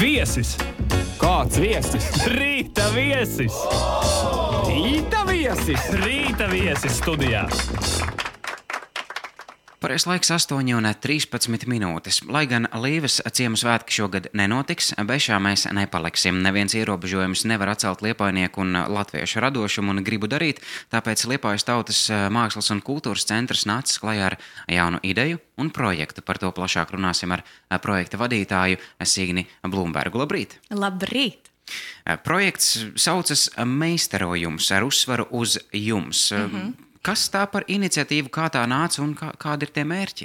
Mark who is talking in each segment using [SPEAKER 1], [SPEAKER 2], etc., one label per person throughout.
[SPEAKER 1] Viesis!
[SPEAKER 2] Kāds viesis?
[SPEAKER 1] Rīta viesis!
[SPEAKER 2] Rīta viesis!
[SPEAKER 1] Rīta viesis studijā!
[SPEAKER 3] Pareizais laiks 8:13. Lai gan Līves ciemu svētki šogad nenotiks, bešā mēs nepaliksim. Neviens ierobežojums nevar atcelt liepājnieku un latviešu radošumu un gribu darīt, tāpēc Liepājas tautas mākslas un kultūras centrs nācis klajā ar jaunu ideju un projektu. Par to plašāk runāsim ar projekta vadītāju Signi Blūmbergu. Labrīt!
[SPEAKER 4] Labrīt!
[SPEAKER 3] Projekts saucas Meistarojums ar uzsvaru uz jums. Kas tā par iniciatīvu, kā tā nāca un kādi ir tie mērķi?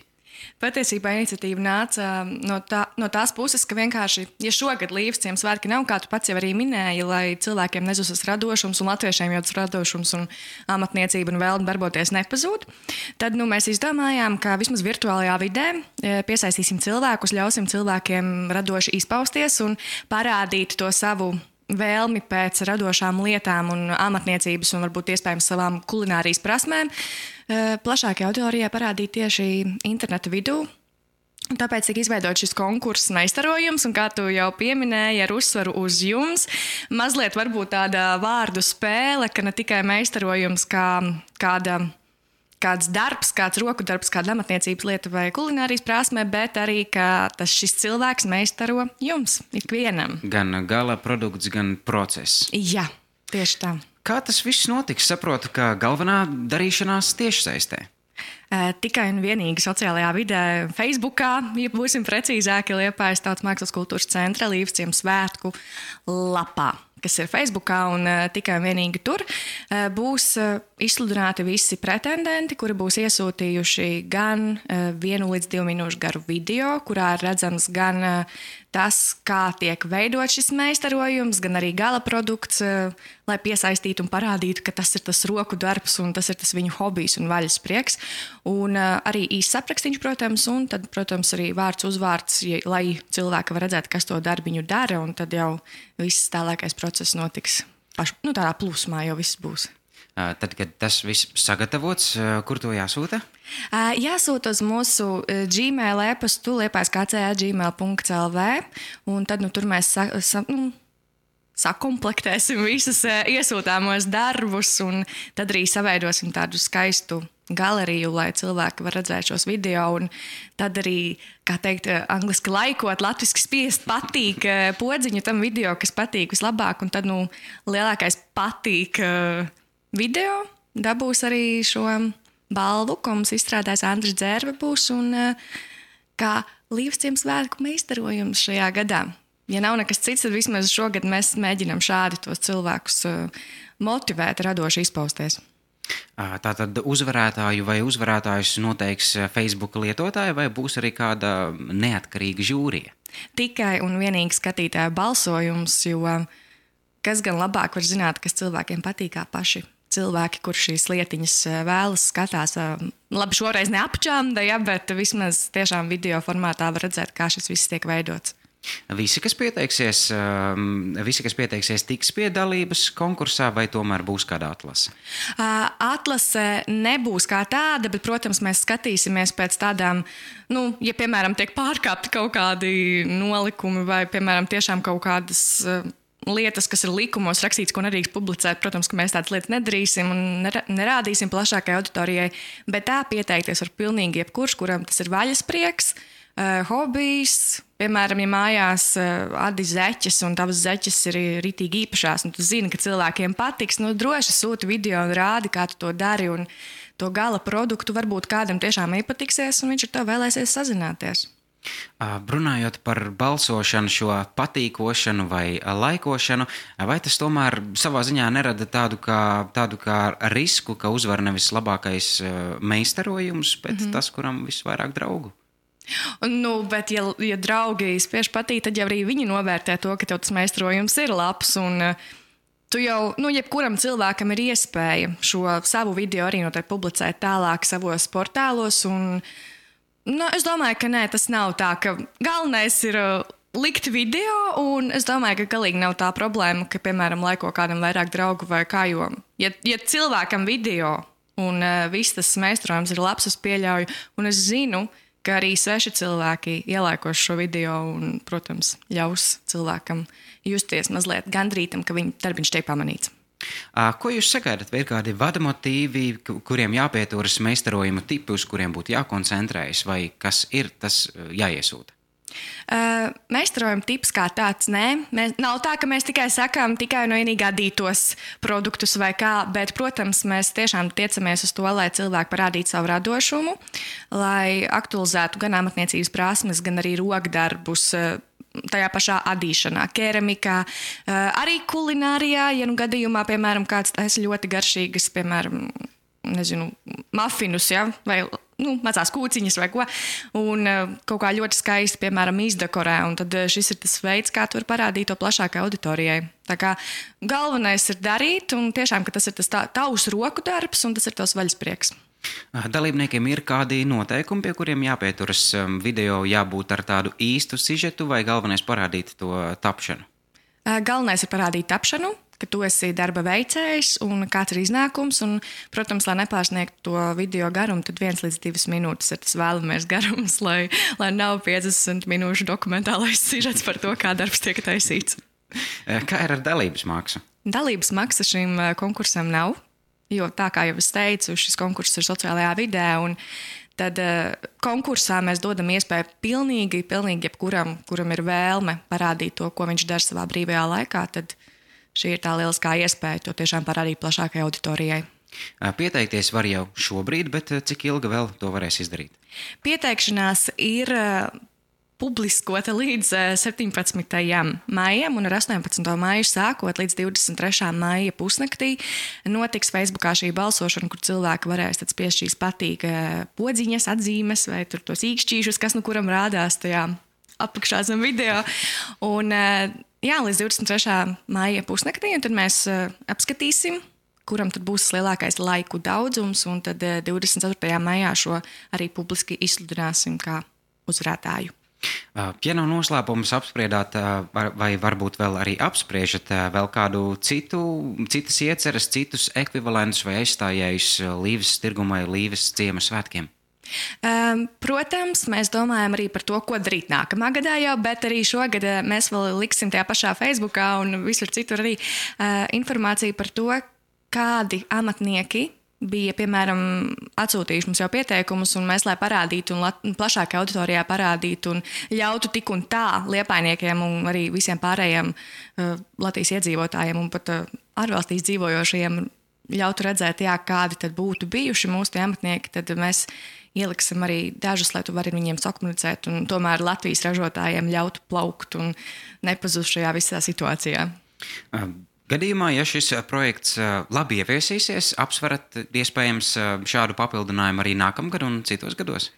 [SPEAKER 4] Patiesībā iniciatīva nāca no tās puses, ka vienkārši, ja šogad Līves ciemu svētki nav, kā tu pats jau arī minēji, lai cilvēkiem nezusas radošums un latviešiem jau tas radošums un amatniecība un vēlme darboties nepazūd, tad mēs izdomājām, ka vismaz virtuālajā vidē piesaistīsim cilvēkus, ļausim cilvēkiem radoši izpausties un parādīt to savu vēlmi pēc radošām lietām un amatniecības un varbūt iespējams savām kulinārijas prasmēm plašākajai auditorijai parādīt tieši interneta vidū. Tāpēc tika izveidots šis konkurss Meistarojums, un kā tu jau pieminēji, ar uzsvaru uz jums, mazliet varbūt tāda vārdu spēle, ka ne tikai meistarojums kā kāds darbs, kāds roku darbs, kāda amatniecības lieta vai kulinārijas prasme, bet arī, ka šis cilvēks meistaro jums, ikvienam.
[SPEAKER 3] Gan gala produkts, gan process.
[SPEAKER 4] Jā, tieši tā.
[SPEAKER 3] Kā tas viss notiks? Saprotu, ka galvenā darīšanās tiešsaistē.
[SPEAKER 4] Tikai un vienīgi sociālajā vidē, Facebookā, ja būsim precīzāki, Liepājas tautas mākslas kultūras centra Līves ciemu svētku lapā, kas ir Facebookā, un tikai un vienīgi tur būs izsludināti visi pretendenti, kuri būs iesūtījuši gan 1 līdz 2 minūšu garu video, kurā ir redzams gan tas, kā tiek veidot šis meistarojums, gan arī gala produkts, lai piesaistītu un parādītu, ka tas ir tas roku darbs un tas ir tas viņu hobijs un vaļas prieks. Un arī īsts aprakstīņš, protams, un tad, protams, arī vārds uzvārds, lai cilvēki var redzēt, kas to darbiņu dara, un tad jau viss tālākais process notiks tādā plūsmā, jau viss būs.
[SPEAKER 3] Tad, kad tas viss sagatavots, kur to jāsūta?
[SPEAKER 4] Jāsūta uz mūsu Gmail e-pastu liepājas.gmail.lv, un tad tur mēs sakomplektēsim visus iesūtāmos darbus, un tad arī saveidosim tādu skaistu galeriju, lai cilvēki var redzēt šos video, un tad arī, kā teikt, angliski laikot, latviski spiest patīk podziņu tam video, kas patīk vislabāk, un tad, lielākais patīk video dabūs arī šo balvu, ko mums izstrādājis Andris Dzērve būs, un kā Līves ciemu svētku meistarojums šajā gadā. Ja nav nekas cits, tad vismaz šogad mēs mēģinām šādi tos cilvēkus motivēt, radoši izpausties.
[SPEAKER 3] Tātad uzvarētāju vai uzvarētājus noteiks Facebook lietotāji, vai būs arī kāda neatkarīga žūrija? Tikai
[SPEAKER 4] un vienīgi skatītāju balsojums, jo kas gan labāk var zināt, kas cilvēkiem patīk kā paši cilvēki, kur šīs lietiņas vēlas, skatās. Labi, šoreiz neapčāmda, bet vismaz tiešām video formātā var redzēt, kā šis viss tiek veidots.
[SPEAKER 3] Visi, kas pieteiksies, tiks pie dalības konkursā, vai tomēr būs kāda atlase?
[SPEAKER 4] Atlase nebūs kā tāda, bet, protams, mēs skatīsimies pēc tādām, ja, piemēram, tiek pārkāpti kaut kādi nolikumi vai, piemēram, tiešām kaut kādas lietas, kas ir likumos rakstīts, ko nedrīkst publicēt. Protams, ka mēs tādas lietas nedarīsim un nerādīsim plašākai auditorijai, bet tā pieteikties var pilnīgi jebkurš, kuram tas ir vaļas prieks, hobijs. Piemēram, ja mājās adi zeķes un tavas zeķes ir ritīgi īpašās, un tu zini, ka cilvēkiem patiks, droši sūti video un rādi, kā tu to dari, un to gala produktu varbūt kādam tiešām iepatiksies, un viņš ar to vēlēsies sazināties.
[SPEAKER 3] Runājot par balsošanu, šo patīkošanu vai laikošanu, vai tas tomēr savā ziņā nerada tādu kā risku, ka uzvar nevis labākais meistarojums, bet tas, kuram visvairāk draugu?
[SPEAKER 4] Bet ja draugi spiež patīt, tad jau arī viņi novērtē to, ka tev tas meistarojums ir labs, un tu jau, jebkuram cilvēkam ir iespēja šo savu video arī noteikti publicēt tālāk savos portālos, un es domāju, ka nē, tas nav tā, ka galvenais ir likt video, un es domāju, ka galīgi nav tā problēma, ka, piemēram, laiko kādam vairāk draugu vai kā, jo, ja cilvēkam video un viss tas meistarojums ir labs, es pieļauju, un es zinu, ka arī sveši cilvēki ielaikos šo video un, protams, ļaus cilvēkam justies mazliet gandrītam, ka viņa darbiņš tiek pamanīts.
[SPEAKER 3] Ko jūs sagaidat? Vai ir kādi vadamotīvi, kuriem jāpieturas meistarojumu tipi, uz kuriem būtu jākoncentrējas, vai kas ir tas jāiesūta?
[SPEAKER 4] Meistarojuma tips kā tāds, nē. Nav tā, ka mēs tikai sakām tikai un vienīgi adītos produktus vai kā, bet, protams, mēs tiešām tiecamies uz to, lai cilvēki parādītu savu radošumu, lai aktualizētu gan amatniecības prasmes, gan arī rokdarbus tajā pašā adīšanā, keramikā, arī kulinārijā, ja nu gadījumā, piemēram, kāds taisa ļoti garšīgas, piemēram, mafinus, ja, vai mazās kūciņas vai ko, un kaut kā ļoti skaisti, piemēram, izdekorē, un tad šis ir tas veids, kā tu vari parādīt to plašākai auditorijai. Tā kā galvenais ir darīt, un tiešām, ka tas ir tas tavs roku darbs, un tas ir tavs vaļasprieks.
[SPEAKER 3] Dalībniekiem ir kādi noteikumi, pie kuriem jāpieturas? Video jābūt ar tādu īstu sižetu vai galvenais parādīt to tapšanu?
[SPEAKER 4] Galvenais ir parādīt tapšanu, ka tu esi darba veicējs un kāds ir iznākums. Un, protams, lai nepārsniegtu to video garumu, tad 1 līdz 2 minūtes ir tas vēlamies garums, lai nav 50 minūšu dokumentālais sižets par to, kā darbs tiek taisīts.
[SPEAKER 3] Kā ir ar dalības maksu?
[SPEAKER 4] Dalības maksa šim konkursam nav, jo tā kā jau es teicu, šis konkurss ir sociālajā vidē, un tad konkursā mēs dodam iespēju pilnīgi jebkuram, kuram ir vēlme parādīt to, ko viņš dara savā brīvajā laikā, tad šī ir tā lieliskā iespēja to tiešām parādīt plašākai auditorijai.
[SPEAKER 3] Pieteikties var jau šobrīd, bet cik ilgi vēl to varēs izdarīt? Pieteikšanās
[SPEAKER 4] ir publiskota līdz 17. maijam un ar 18. maiju sākot līdz 23. maija pusnaktī notiks Facebookā šī balsošana, kur cilvēki varēs tad spiest patīk podziņas, atzīmes vai tur tos īkšķīšus, kas nu kuram rādās tajā apakšā zem video. Un līdz 23. maija pusnaktī, un tad mēs apskatīsim, kuram tad būs lielākais laiku daudzums, un tad 24. maijā šo arī publiski izsludināsim kā uzvarētāju.
[SPEAKER 3] Ja nav noslēpums apspriedāt, vai varbūt vēl arī apspriežat vēl kādu citas ieceres, citus ekvivalentus vai aizstājējus Līves tirguma vai Līves ciema svētkiem?
[SPEAKER 4] Protams, mēs domājam arī par to, ko darīt nākamā gadā jau, bet arī šogad mēs vēl liksim tajā pašā Facebookā un visur citur arī informāciju par to, kādi amatnieki bija, piemēram, atsūtījuši mums jau pieteikumus, un mēs, lai parādītu un plašākajā auditorijā parādītu un ļautu tik un tā liepainiekiem un arī visiem pārējiem Latvijas iedzīvotājiem un pat ārvalstīs dzīvojošajiem ļautu redzēt, kādi tad būtu bijuši mūsu tie amatnieki, tad mēs ieliksim arī dažus, lai tu vari viņiem sakomunicēt un tomēr Latvijas ražotājiem ļautu plaukt un nepazust šajā visā situācijā.
[SPEAKER 3] Gadījumā, ja šis projekts labi ieviesīsies, apsverat iespējams šādu papildinājumu arī nākamgad un citos gados?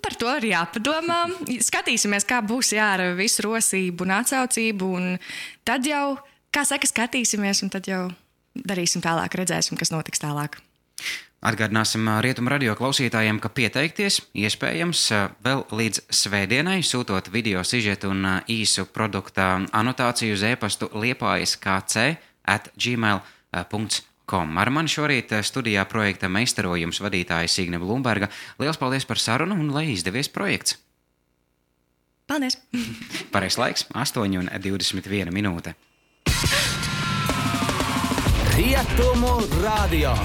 [SPEAKER 4] Par to ir jāpadomā. Skatīsimies, kā būs ar visu rosību un atsaucību, un tad jau, kā saka, skatīsimies, un tad jau darīsim tālāk, redzēsim, kas notiks tālāk.
[SPEAKER 3] Atgādināsim Rietumu radio klausītājiem, ka pieteikties iespējams vēl līdz svētdienai, sūtot video sižetu un īsu produkta anotāciju uz e-pastu liepajas.kc@gmail.com. Ar mani šorīt studijā projekta meistarojums vadītāja Signe Blumberga. Liels paldies par sarunu un lai izdevies projekts!
[SPEAKER 4] Paldies!
[SPEAKER 3] Pareizs laiks 8:21 minūte.
[SPEAKER 2] Rietumu radio.